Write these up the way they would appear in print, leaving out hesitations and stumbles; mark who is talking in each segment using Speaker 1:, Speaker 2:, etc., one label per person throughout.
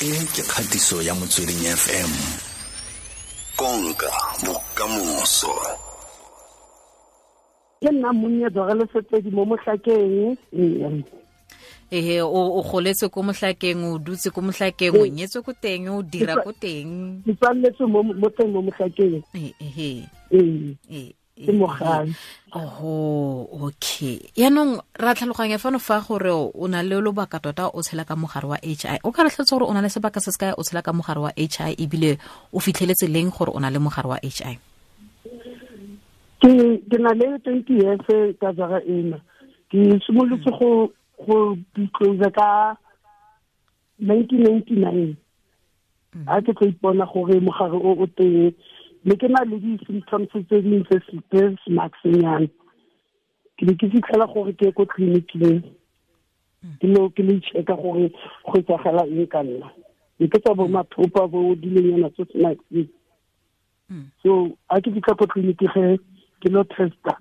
Speaker 1: E ke kgatiso ya Motsweding FM. Konka bokamoso.
Speaker 2: Ke nna monnye Dora Lesetedi mo Mohlakeng.
Speaker 3: Ehe, o goletse ko Mohlakeng, o dutse ko Mohlakeng, o nyetswe ko teng, o dira ko teng.
Speaker 2: Ke tswaletswe mo teng mo Mohlakeng.
Speaker 3: Ehe.
Speaker 2: Ee. Ke mo gae.
Speaker 3: Oho, okay. Yaanong ra tlhaloganya fano fa gore o na le lobaka tota o tshela ka mogare wa HI. O ka re tlhalosa gore o na le sebaka se se kae o tshela ka mogare wa HI, ebile o fitlheletse leng gore o na le mogare wa HI?
Speaker 2: Ke na le 20 years ka jara ena. Ke simolotse go disclose ka 1999. A ke tlo ipona gore mogare o teng, mme ke na le di-symptoms tse dingwe tse smaxnyana. Ke ne ke fitlhela gore ke ye ko tleliniking, ke lo check-a gore go etsagala eng ka nna. Ne ke tsa bo mathopa bo dilonyana tse smax. So a ke fitlha ko tleliniking ge ke lo testa,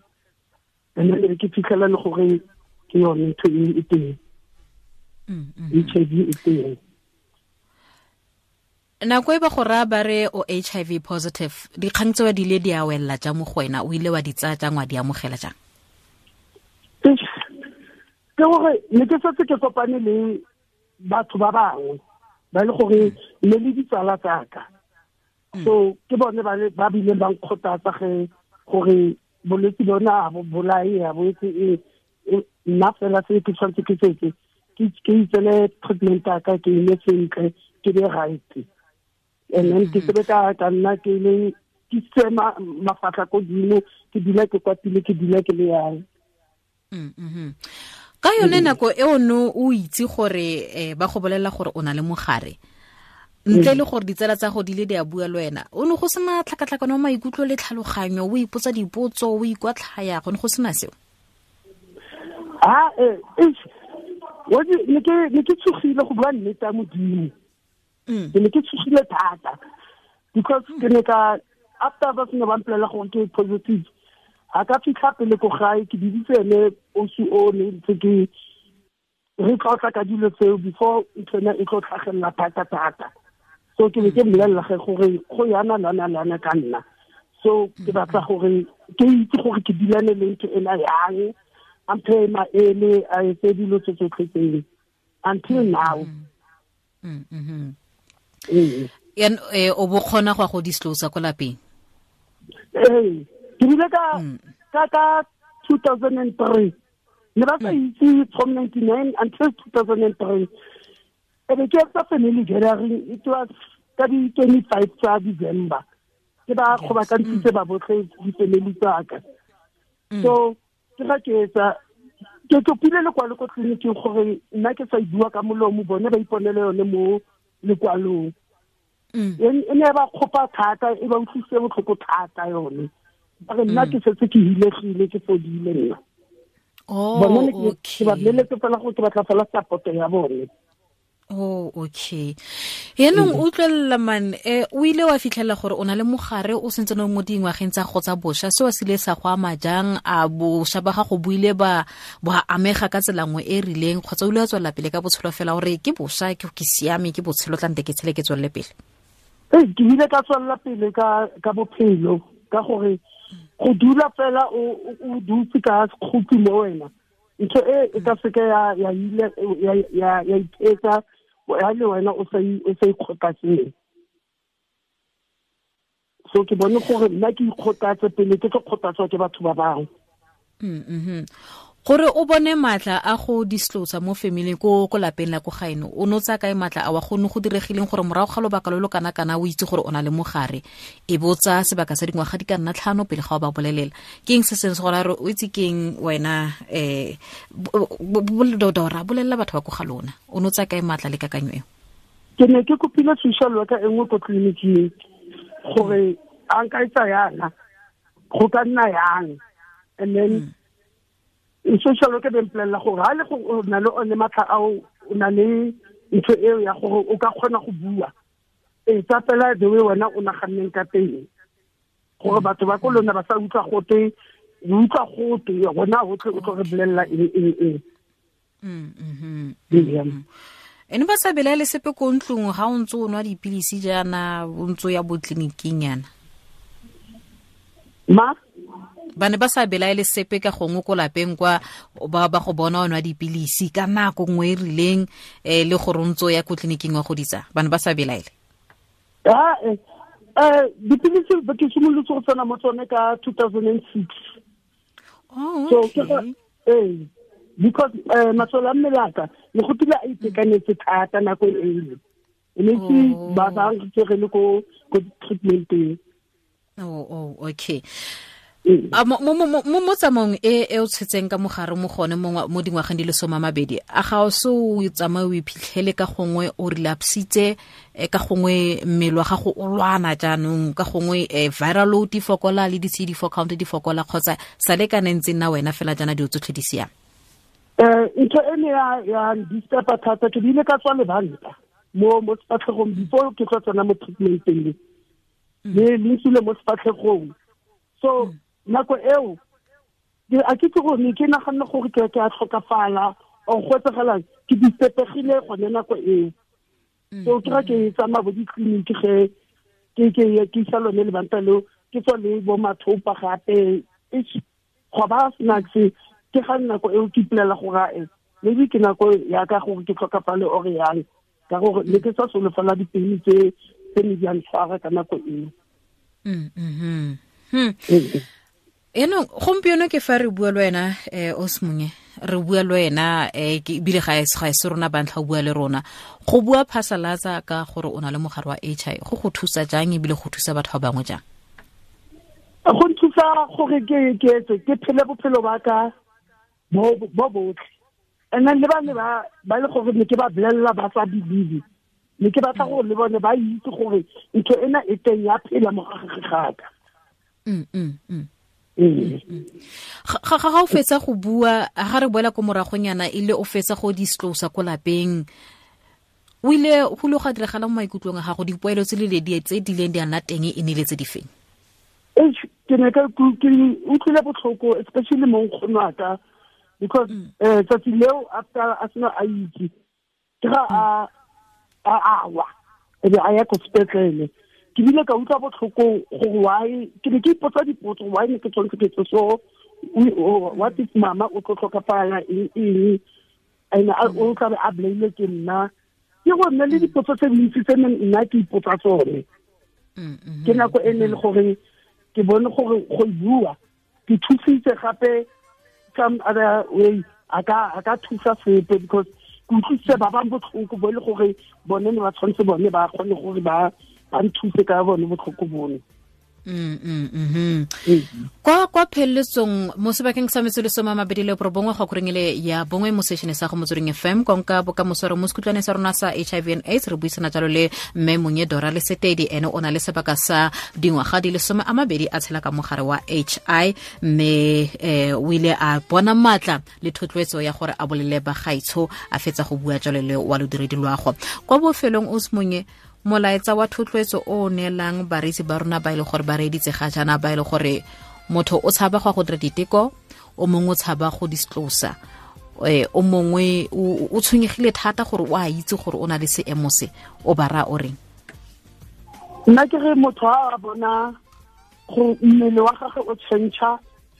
Speaker 2: and then ke fitlhela le gore ke yone ntho e teng. HIV e teng.
Speaker 3: Nako e ba go raya ba re o HIV positive, dikgang tseo di ile di a wella jang mo go wena? O ile wa di tsaya jang, wa di amogela jang?
Speaker 2: Ke gore ne ke setse ke kopane le batho ba bangwe ba le gore ne le ditsala tsa ka. So ke bone ba bileng ba nkgothatsa ge gore bolwetse bona ha bo bolaye, ha bo etse eng. Nna fela se ke tshwanetse ke setse, ke itsele treatment ya ka, ke eme sentle, ke be right. And then ke sebe ka nna ke le ke se mafatlha ko godimo, ke dula ke kwatile, ke dula ke le yang.
Speaker 3: Ka yone nako e o no o itse gore ba go bolelela gore o na le mogare, ntle le gore ditsala tsa go di le di a bua le wena, o ne go sena tlhakatlhakano ya maikutlo le tlhaloganyo, o ipotsa dipotso, o ikwatlhaya, go ne go sena seo?
Speaker 2: Ne ke tshogile go bua nnete ya Modimo. Ke ne ke tshogile thata because ke ne ka after ba sene ba mpolelela gore ke positive, a ka fitlha pele ko gae, ke biditse ene osi o ne ntse ke re tlotla ka dilo tseo before ntho ena e tlo tlhagelela thata thata. So ke ne ke mmolelela ge gore go yana lana lana ka nna. So ke batla gore ke itse gore ke dilane le ntho ena yang, a mphe maele, a etse dilo tse tsotlhe tseo until now.
Speaker 3: Yan o bo kgona go ya go disclose ko lapeng?
Speaker 2: Ee, ke bile ka 2003. Ne ba sa itse from 99 until 2003. E be ke etsa family gathering, it was ka di 25 tsa December. Ke ba kgobakantshitse ba botlhe di-family tsa ka. So ke ga ke etsa, ke kopile lekwalo ko tleliniking gore nna ke sa e bua ka molomo, bone ba iponele yone mo lekwalong. E ne ba kgopa thata, e ba utlwisitse botlhoko thata yone. Ba re nna ke setse ke hilegile, ke fodile nna. Bone ne ke ba boleletse fela gore ke batla fela support ya bone.
Speaker 3: Oh, okay. Yaanong utlwelela man, o ile wa fitlhela gore o na le mogare o sentse o mo dingwageng tsa go tsa bosha, seo se ile sa go ama jang? A bosha ba gago bo ile ba amega ka tsela nngwe e rileng, kgotsa o ile wa tswelela pele ka botshelo fela gore ke bosha, ke siame, ke botshelo tla nte ke tshele ke tswelele pele?
Speaker 2: Ee, ke ile ka tswelela pele ka bophelo, ka gore go dula fela o dutse ka sekgopi mo wena, ntho e e ka seke ya ile ya ithetsa ya le wena o sa ikgothatseng. So ke bone gore nna ke ikgothatse pele ke tlo kgothatswa ke batho ba bangwe.
Speaker 3: Gore o bone matla a go disclose mo family ko lapeng la ko gaeno, o no tsaya kae matla a wa go ne go diregileng gore morago ga lobaka lo lo kana kana o itse gore o na le mogare, e bo tsaya sebaka sa dingwaga di ka nna 5 pele ga o ba bolelela? Ke eng se seng se gore o itse keng wena, Dora, bolelela batho ba ko ga lona, o no tsaya kae matla le kakanyo eo?
Speaker 2: Ke ne ke kopile social worker e nngwe ko tleliniking gore a nka etsa yana, go ka nna yang, and then social worker be mpolelela gore ha le go o na le one matlha ao, o na le ntho eo ya gore o ka kgona go bua, e tsa fela the way wena o naganneng ka teng, gore batho ba ko lona ba sa utlwa gote, o utlwa gote rona hotlhe o tlo re bolelela eng eng eng.
Speaker 3: Ene ba sa belaele sepe ko ntlong ga o ntse o nwa dipilisi jaana, o ntse o ya bo tleliniking yana?
Speaker 2: Ma?
Speaker 3: Ba ne ba sa belaele sepe ka gongwe ko lapeng kwa ba go bona o nwa dipilisi ka nako nngwe e rileng, le gore o ntse o ya ko tleliniking wa go ditsa, ba ne ba sa belaele?
Speaker 2: Dipilisi ke simolotse go tsena mo tsone ka 2006.
Speaker 3: Oh,
Speaker 2: So,
Speaker 3: okay.
Speaker 2: Because masole a mmele a ka ne go tile a itekanetse thata nako e ne ke ba ba ntse le ko treatmenteng.
Speaker 3: Oh, okay. A mo tsamaong e o tshetseng ka mogare mo gone mo dingwageng di le 20, a ga o se o tsamaye o iphitlhele ka gongwe o relapsitse, ka gongwe mmele wa gago o lwana jaanong, ka gongwe viral load di fokola le di-CD4 count di fokola, kgotsa sa le kana ntse nna wena fela jaana dilo tsotlhe di siame?
Speaker 2: Ntho e ne ya disturba thata, ke bile ka tswa lebanta mo sefatlhegong before ke tlo tsena mo treatmenteng, le ntsile mo sefatlhegong. So nako eo a ke itse gore ne ke naganne gore ke a tlhokafala or go etsagalang, ke disturbegile gone nako eo. So ke ra ke tsamaya bo ditleliniki ge ke isa lone lebanta leo, ke tswa le bo mathopa gape, go ba snacks. Ke ga nako eo ke ipolela gore maybe ke nako ya ka gore ke tlhokafale or yang, ka gore ne ke sa solofela dipilisi tse ne di a ntshwara ka nako eo.
Speaker 3: Eno gompieno ke fa re bua le wena, Osmunye, re bua le wena, ke ebile ga e se rona ba ntlha o bua le rona. Go bua phasalatsa ka gore o na le mogare wa HIV go go thusa jang ebile go thusa batho ba bangwe jang?
Speaker 2: Go nthusa gore ke phele bophelo ba ka bo botlhe. And then le ba ne ba le gore ne ke ba bolella ba sa believe, ne ke batla gore le bone ba itse gore ntho ena e teng ya phela mo gare ga ka.
Speaker 3: Ga o fetsa go bua, ga re boela ko moragonyana, e le o fetsa go disclose ko lapeng, o ile go le go diragala mo maikutlong a gago, dipoelo tse le di tse di leng di a nna teng e ne le tse di feng?
Speaker 2: Ke ne ke utlwile botlhoko, especially mo nkgono wa ka, because tsatsi leo after a sena a itse, ke ga a wa, e be a ya ko sepetlele. Ke bile ka utlwa botlhoko gore why, ke ne ke ipotsa dipotso, why ne ke tshwanetse ke etse so, what if mama o tlo tlhokafala eng eng, and o tla be a bolailwe ke nna. Ke go nna le dipotso tse dintsi tse nna ke ipotsa tsone. Ke nako e ne le gore ke bone gore go bua ke thusitse gape some other way, a ka thusa sepe, because ke utlwisitse ba bang botlhoko bo e le gore bone ne ba tshwanetse bone ba kgone gore ba nthuse ka bone botlhoko bone.
Speaker 3: Kwa pheletsong mo sebakeng sa metsotso le 29 go korengele ya bongwe mo sešene sa go Motsweding FM, konka bokamoso re mo sekhutlwane sa rona sa HIV and AIDS, re buisana jalo le mme Monye Dora Lesetedi, ene o na le sebaka sa dingwaga di le 20 a tshela ka mogare wa HI, mme o ile a bona matla le thotloetso ya gore a bolele bagaetsho, a fetsa go bua jalo le wa lodiredi loago. Kwa bofelong o Monye, molaetsa wa thotloetso o neelang bareetsi ba rona ba ile gore ba reeditse ga jaana, ba ile gore motho o tshaba go dira diteko, o mongwe o tshaba go disclose, o mongwe o tshwenyegile thata gore o a itse gore o na le seemo se, o ba raya o reng?
Speaker 2: Nna ke re motho a bona gore mmele wa gagwe o change,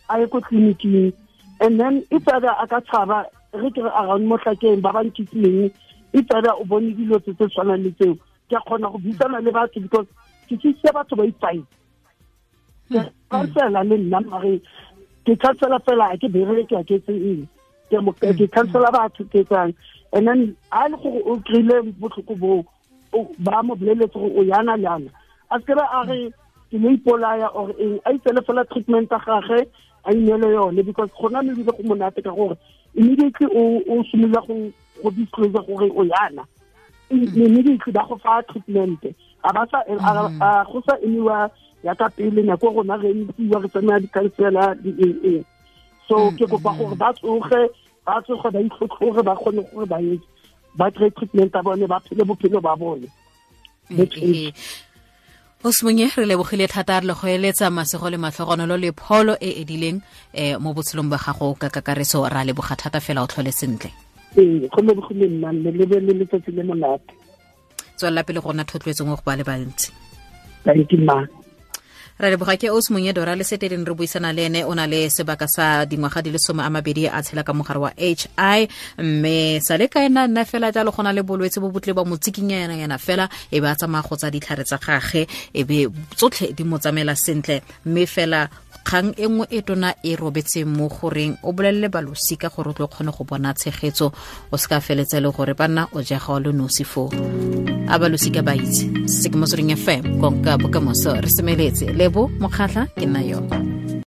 Speaker 2: a ye ko tleliniking, and then if either a ka tshaba, re ke re around Mohlakeng ba ba nkitsileng, if either o bone dilo tse tshwanang le tseo, ke a kgona go buisana le batho, because ke thusitse batho ba ipae. Ke kansela le nna, mare ke kansela fela, ke bereke, ke etse eng, ke kansela batho, ke etsang. And then a le gore o kry-ile botlhoko boo, ba mo boleletse gore o yana le yana, a se ke ba a re ke lo ipolaya or eng, a itsele fela treatment ya gagwe, a ineele yone, because gona mme ebile go monate ka gore immediately o simolola go disclose gore o yana, immediately ba go fa treatment, a ba sa go sa emiwa ya ka pele nako rona re emisiwa re tsamaya di-counsellor di eng eng. So ke kopa gore ba tsoge ba itlhotlhore, ba kgone gore ba etse, ba kry treatment ya bone, ba phele bophelo ba bone.
Speaker 3: Osmunye, re lebogile thata, re le go eletsa masego le matlhogonolo le pholo e edileng mo botshelong ba gago ka kakaretso. Ra leboga thata fela, o tlhole sentle.
Speaker 2: Ee, go lebogile nna, mme le be le letsatsi le monate.
Speaker 3: Tswelela pele go nna thotloetso mo go ba le bantsi.
Speaker 2: Thank you, ma.
Speaker 3: Ra leboga. Ke os Monyedora le seteleng re buisana le ene. O na le sebaka sa dingwaga di le 20 a tshela ka mogare wa HI, mme sa le ka ena nna fela jalo go na le bolwetse bo botle ba mo tsikinyana fela, e be a tsamaya go tsa ditlhare tsa gage, e be tsotlhe di mo tsamaela sentle. Mme fela kgang e nngwe e tona e robetseng mo goreng o bolelele balosika gore o tlo kgone go bona tshegetso, o se ka feletse le gore banna o jega o le nosi foo. A balosika ba itse se ke Motsweding FM, konka bokamoso. Re semeletse, Lebo Mokgatlha ke nna yo.